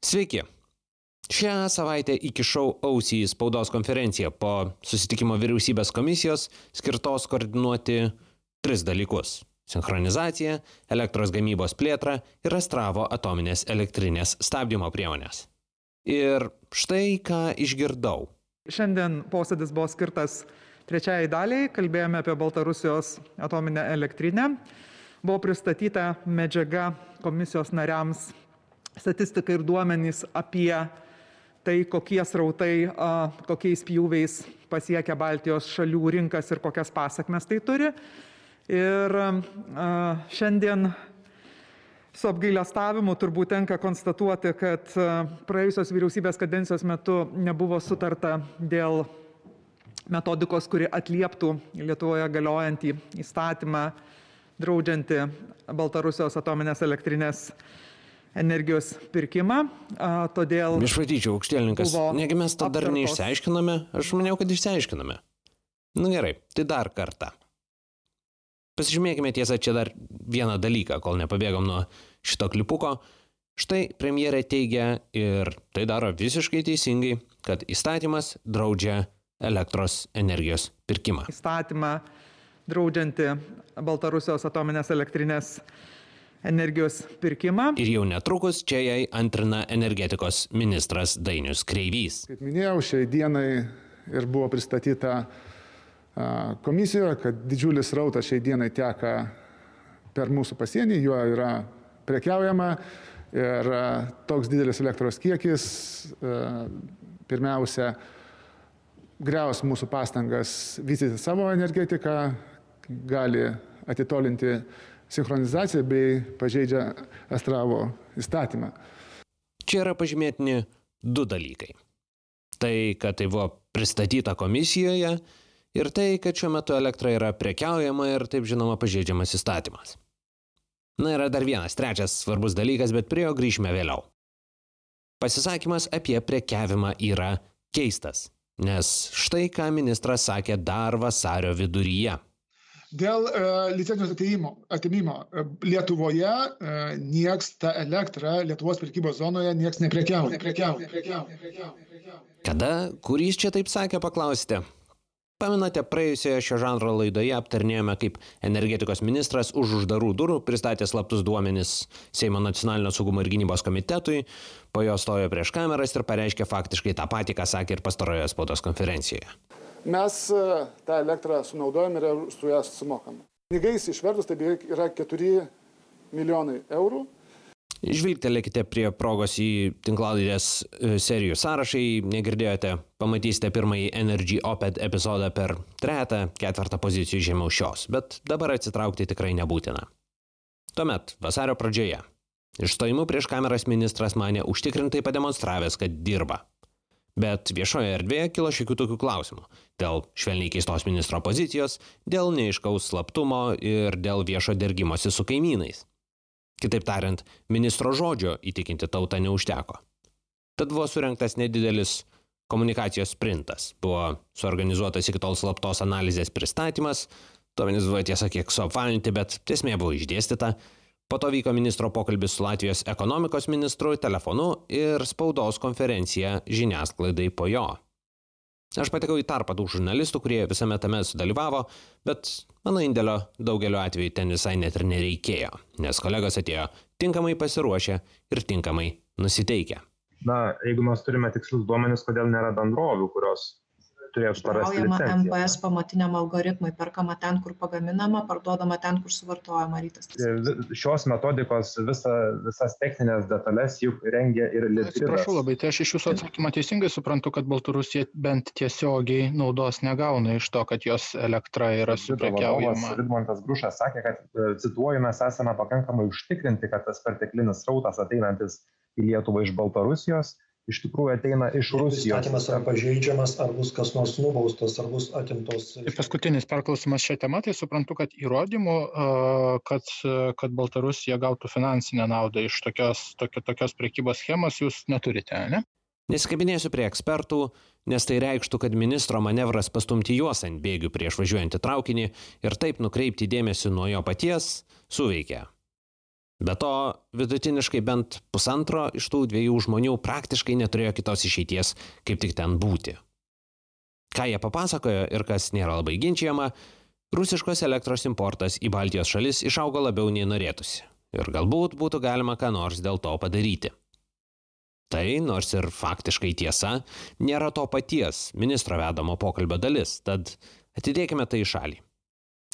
Sveiki. Šią savaitę įkišau ausį į spaudos konferenciją po susitikimo vyriausybės komisijos skirtos koordinuoti 3 dalykus – sinchronizaciją, elektros gamybos plėtrą ir Astravo atominės elektrinės stabdymo priemonės. Ir štai ką išgirdau. Šiandien posėdis buvo skirtas trečiajai daliai, kalbėjome apie Baltarusijos atominę elektrinę. Buvo pristatyta medžiaga komisijos nariams, statistika ir duomenys apie tai, kokie srautai, kokiais pjūviais pasiekia Baltijos šalių rinkas ir kokias pasakmes tai turi. Ir šiandien su apgailestavimu turbūt tenka konstatuoti, kad praėjusios vyriausybės kadencijos metu nebuvo sutarta dėl metodikos, kuri atlieptų Lietuvoje galiojantį įstatymą draudžiantį Baltarusijos atominės elektrinės energijos pirkimą, todėl... Išvatyčiau, aukštielninkas, negi mes to dar neišsiaiškiname? Aš maniau, kad išsiaiškiname. Gerai, tai dar kartą. Pasižymėkime tiesą čia dar vieną dalyką, kol nepabėgom nuo šito klipuko. Štai premjerė teigia, ir tai daro visiškai teisingai, kad įstatymas draudžia elektros energijos pirkimą. Įstatymą draudžianti Baltarusijos atominės elektrinės energijos pirkimą. Ir jau netrukus čia jai antrina energetikos ministras Dainius Kreivys. Kaip minėjau, šiai dienai ir buvo pristatyta komisijoje, kad didžiulis srautas šiai dienai teka per mūsų pasienį, juo yra prekiaujama ir toks didelis elektros kiekis pirmiausia griaus mūsų pastangas vystyti savo energetiką, gali atitolinti sinchronizaciją bei pažeidžia Astravo įstatymą. Čia yra pažymėtini 2 dalykai. Tai, kad tai buvo pristatyta komisijoje ir tai, kad šiuo metu elektra yra prekiaujama ir taip žinoma pažeidžiamas įstatymas. Yra dar vienas, trečias svarbus dalykas, bet prie jo grįšime vėliau. Pasisakymas apie prekiavimą yra keistas, nes štai ką ministras sakė dar vasario viduryje. Dėl licencijos atėmimo Lietuvoje nieks tą elektrą Lietuvos prekybos zonoje nieks neprekiauja. Kada, kur jis čia taip sakė, paklausite? Pamenate, praėjusioje šio žanro laidoje aptarnėjome, kaip energetikos ministras už uždarų durų pristatė slaptus duomenis Seimo nacionalinio saugumo ir gynybos komitetui, po jo stojo prieš kameras ir pareiškė faktiškai tą patį, ką sakė ir pastarojoje spaudos konferencijoje. Mes tą elektrą sunaudojame ir su ją sumokame. Pinigais išvertus tai beveik yra 4 milijonai eurų. Žvilgtelėkite prie progos į tinklalaidės serijų sąrašą, negirdėjote, pamatysite pirmąjį Energy Oped epizodą per 3-4 pozicijų žemiau šios, bet dabar atsitraukti tikrai nebūtina. Tuomet, vasario pradžioje, išstojimu prieš kameras ministras manė užtikrintai pademonstravęs, kad dirba. Bet viešoje erdvėje kilo šiokių tokių klausimų. Dėl švelniai keistos ministro pozicijos, dėl neaiškaus slaptumo ir dėl viešo dergimosi su kaimynais. Kitaip tariant, ministro žodžio įtikinti tautą neužteko. Tad buvo surengtas nedidelis komunikacijos sprintas. Buvo suorganizuotas iki tol slaptos analizės pristatymas, duomenys buvo tiesa kiek suapvalinti, bet esmė buvo išdėstyta. Po to vyko ministro pokalbis su Latvijos ekonomikos ministru telefonu ir spaudos konferencija žiniasklaidai po jo. Aš patekau į tarpą tų žurnalistų, kurie visame tame sudalyvavo, bet mano indėlio daugeliu atveju ten visai net ir nereikėjo, nes kolegos atėjo tinkamai pasiruošę ir tinkamai nusiteikę. Jeigu mes turime tikslius duomenis, kodėl nėra bendrovių, kurios turėtų parasti licenciją. MPS pamatiniam algoritmui, perkama ten, kur pagaminama, parduodama ten, kur suvartojama rytas. Šios metodikos visas techninės detalės juk rengia ir Litgridas. Atsiprašau labai, tai aš iš jūsų atsakymą teisingai suprantu, kad Baltarusija bent tiesiogiai naudos negauna iš to, kad jos elektra yra suprekiaujama. Vidmantas Grušas sakė, kad, cituoju, mes esame pakankamai užtikrinti, kad tas perteklinis srautas ateinantis į Lietuvą iš Baltarusijos iš tikrųjų ateina iš Rusijos. Įstatymas yra pažeidžiamas, ar bus kas nors nubaustas, ar bus atimtos. Ir paskutinis perklausimas šią temą, tai suprantu, kad įrodymų, kad Baltarusija gautų finansinę naudą iš tokios prekybos schemos jūs neturite, ne? Nesikabinėsiu prie ekspertų, nes tai reikštų, kad ministro manevras pastumti juos ant bėgių prieš važiuojantį traukinį ir taip nukreipti dėmesį nuo jo paties suveikė. Be to, vidutiniškai bent pusantro iš tų 2 žmonių praktiškai neturėjo kitos išeities, kaip tik ten būti. Ką jie papasakojo ir kas nėra labai ginčiama, rusiškos elektros importas į Baltijos šalis išaugo labiau nei norėtųsi. Ir galbūt būtų galima ką nors dėl to padaryti. Tai, nors ir faktiškai tiesa, nėra to paties ministro vedamo pokalbio dalis, tad atidėkime tai į šalį.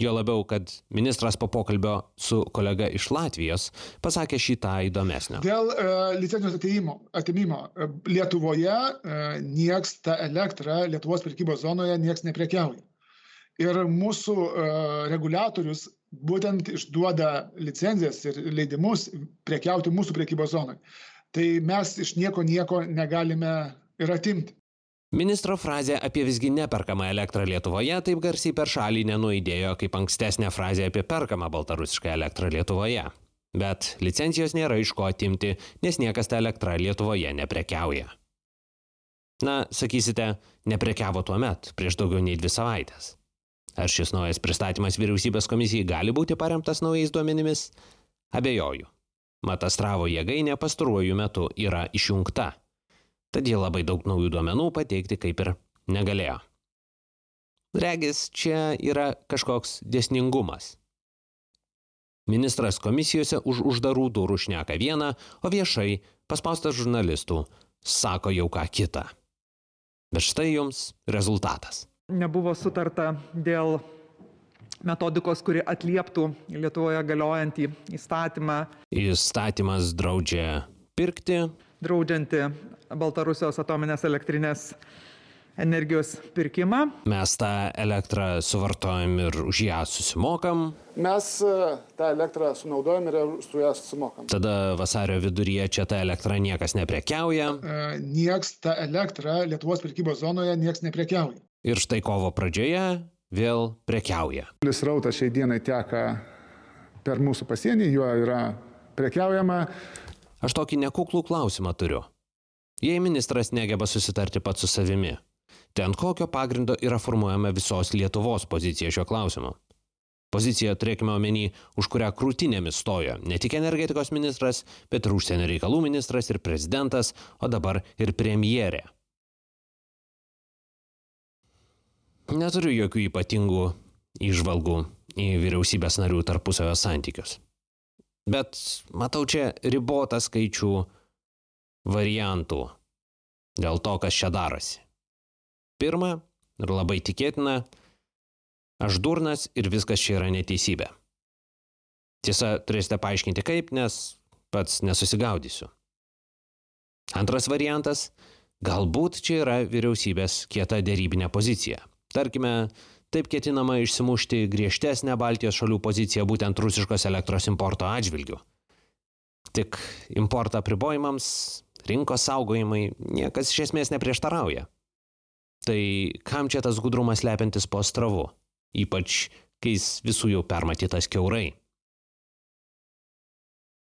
Jo labiau, kad ministras po pokalbio su kolega iš Latvijos pasakė šį tą įdomesnio. Dėl licencijos atėmimo Lietuvoje nieks tą elektrą Lietuvos prekybos zonoje nieks neprekiauja. Ir mūsų reguliatorius būtent išduoda licencijas ir leidimus prekiauti mūsų prekybos zonoje. Tai mes iš nieko negalime ir atimti. Ministro frazė apie visgi neperkamą elektrą Lietuvoje taip garsiai per šalį nenuaidėjo kaip ankstesnė frazė apie perkamą baltarusišką elektrą Lietuvoje. Bet licencijos nėra iš ko atimti, nes niekas tą elektrą Lietuvoje neprekiauja. Na, sakysite, neprekiavo tuomet, prieš daugiau nei 2 savaitės. Ar šis naujas pristatymas vyriausybės komisijai gali būti paremtas naujais duomenimis? Abejoju. Mat Astravo jėgainė pastaruoju metu yra išjungta. Tad jie labai daug naujų duomenų pateikti kaip ir negalėjo. Regis, čia yra kažkoks dėsningumas. Ministras komisijose už uždarų durų šneka vieną, o viešai, paspaustas žurnalistų, sako jau ką kitą. Bet štai jums rezultatas. Nebuvo sutarta dėl metodikos, kuri atlieptų Lietuvoje galiojantį įstatymą. Įstatymas draudžia pirkti, draudžianti Baltarusijos atominės elektrinės energijos pirkimą. Mes tą elektrą suvartojam ir už ją susimokam. Mes tą elektrą sunaudojam ir su ją susimokam. Tada vasario viduryje čia tą elektrą niekas neprekiauja. Nieks tą elektrą Lietuvos prekybos zonoje nieks neprekiauja. Ir štai kovo pradžioje vėl prekiauja. Srautas šiai dienai teka per mūsų pasienį, juo yra prekiaujama. Aš tokį nekuklų klausimą turiu. Jei ministras negeba susitarti pats su savimi, tai ant kokio pagrindo yra formuojama visos Lietuvos pozicija šiuo klausimu? Pozicija, turėkime omeny, už kurią krūtinėmis stojo ne tik energetikos ministras, bet ir užsienio reikalų ministras ir prezidentas, o dabar ir premjerė. Neturiu jokių ypatingų įžvalgų į vyriausybės narių tarpusavio santykius. Bet matau čia ribotą skaičių variantų dėl to, kas čia darosi. Pirma, ir labai tikėtina, aš durnas ir viskas čia yra neteisybė. Tiesa, turėsite paaiškinti kaip, nes pats nesusigaudysiu. Antras variantas, galbūt čia yra vyriausybės kieta derybinė pozicija. Tarkime, taip ketinama išsimušti griežtesnę Baltijos šalių poziciją būtent rusiškos elektros importo atžvilgių. Tik importo apribojimams, rinkos saugojimai niekas iš esmės neprieštarauja. Tai kam čia tas gudrumas slepiantis po Astravu, ypač kai jis visų jau permatytas kiaurai.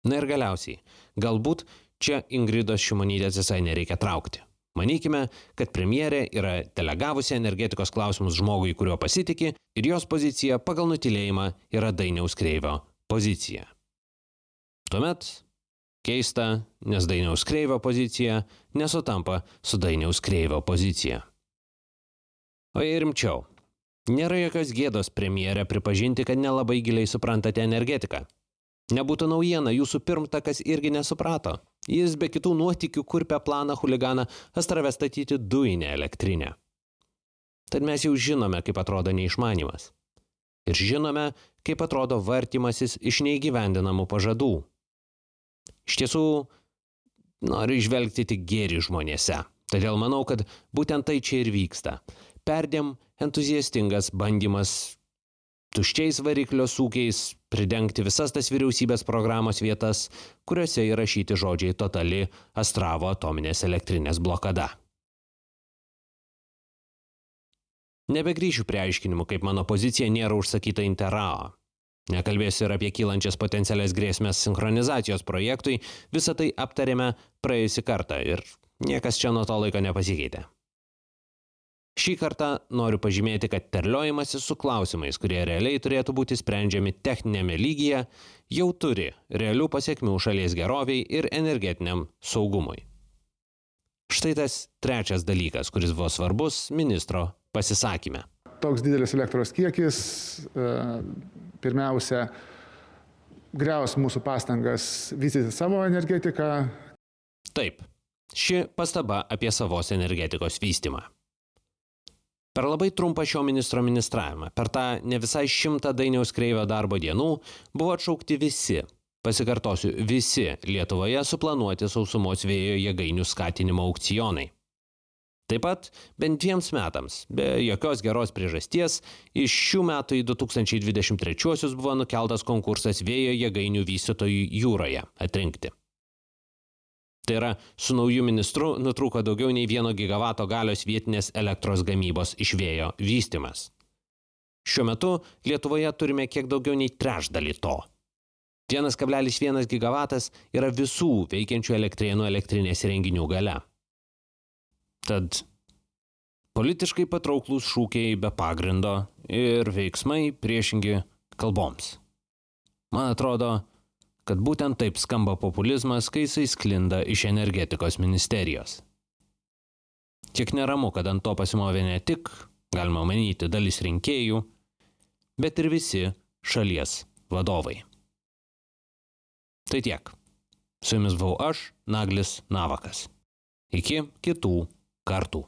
Na ir galiausiai, galbūt čia Ingridos Šimonytės visai nereikia traukti. Manykime, kad premjerė yra delegavusi energetikos klausimus žmogui, kuriuo pasitiki, ir jos pozicija pagal nutylėjimą yra Dainiaus Kreivio pozicija. Tuomet keista, nes Dainiaus Kreivio pozicija nesutampa su Dainiaus Kreivio pozicija. O jei rimčiau, nėra jokios gėdos premjerė pripažinti, kad nelabai giliai suprantate energetiką. Nebūtų naujiena, jūsų pirmtakas irgi nesuprato. Jis be kitų nuotykių kurpia planą chuliganą Astrave statyti dujinę elektrinę. Tad mes jau žinome, kaip atrodo neišmanimas. Ir žinome, kaip atrodo vartymasis iš neįgyvendinamų pažadų. Iš tiesų, noriu įžvelgti tik gėrį žmonėse. Todėl manau, kad būtent tai čia ir vyksta. Perdėm entuziastingas bandymas tuščiais variklio sūkiais pridengti visas tas vyriausybės programos vietas, kuriuose įrašyti žodžiai totali Astravo atominės elektrinės blokada. Nebegrįšiu prie aiškinimų, kaip mano pozicija nėra užsakyta Interrao. Nekalbėsiu ir apie kylančias potencialias grėsmės sinchronizacijos projektui, visą tai aptarėme praėjusį kartą ir niekas čia nuo to laiko nepasikeitė. Šį kartą noriu pažymėti, kad terliojimasis su klausimais, kurie realiai turėtų būti sprendžiami techninėme lygyje, jau turi realių pasiekmių šalies geroviai ir energetiniam saugumui. Štai tas trečias dalykas, kuris buvo svarbus ministro pasisakyme. Toks didelis elektros kiekis pirmiausia griaus mūsų pastangas vystyti savo energetiką. Taip, ši pastaba apie savos energetikos vystymą. Per labai trumpą šio ministro ministravimą, per tą ne visai 100 Dainiaus Kreivio darbo dienų, buvo atšaukti visi, pasikartosiu, visi Lietuvoje suplanuoti sausumos vėjo jėgainių skatinimo aukcionai. Taip pat bent 2 metams, be jokios geros priežasties, iš šių metų į 2023 buvo nukeltas konkursas vėjo jėgainių vystytojų jūroje atrinkti. Tai yra, su nauju ministru nutrūko daugiau nei 1 gigavato galios vietinės elektros gamybos iš vėjo vystymas. Šiuo metu Lietuvoje turime kiek daugiau nei trečdalį to. 1,1 gigavatas yra visų veikiančių elektrėnų elektrinės įrenginių galia. Tad politiškai patrauklūs šūkiai be pagrindo ir veiksmai priešingi kalboms. Man atrodo, kad būtent taip skamba populizmas, kai jisai sklinda iš energetikos ministerijos. Kiek neramu, kad ant to pasimovė ne tik, galima manyti, dalis rinkėjų, bet ir visi šalies vadovai. Tai tiek. Su jumis buvau aš, Naglis Navakas. Iki kitų kartų.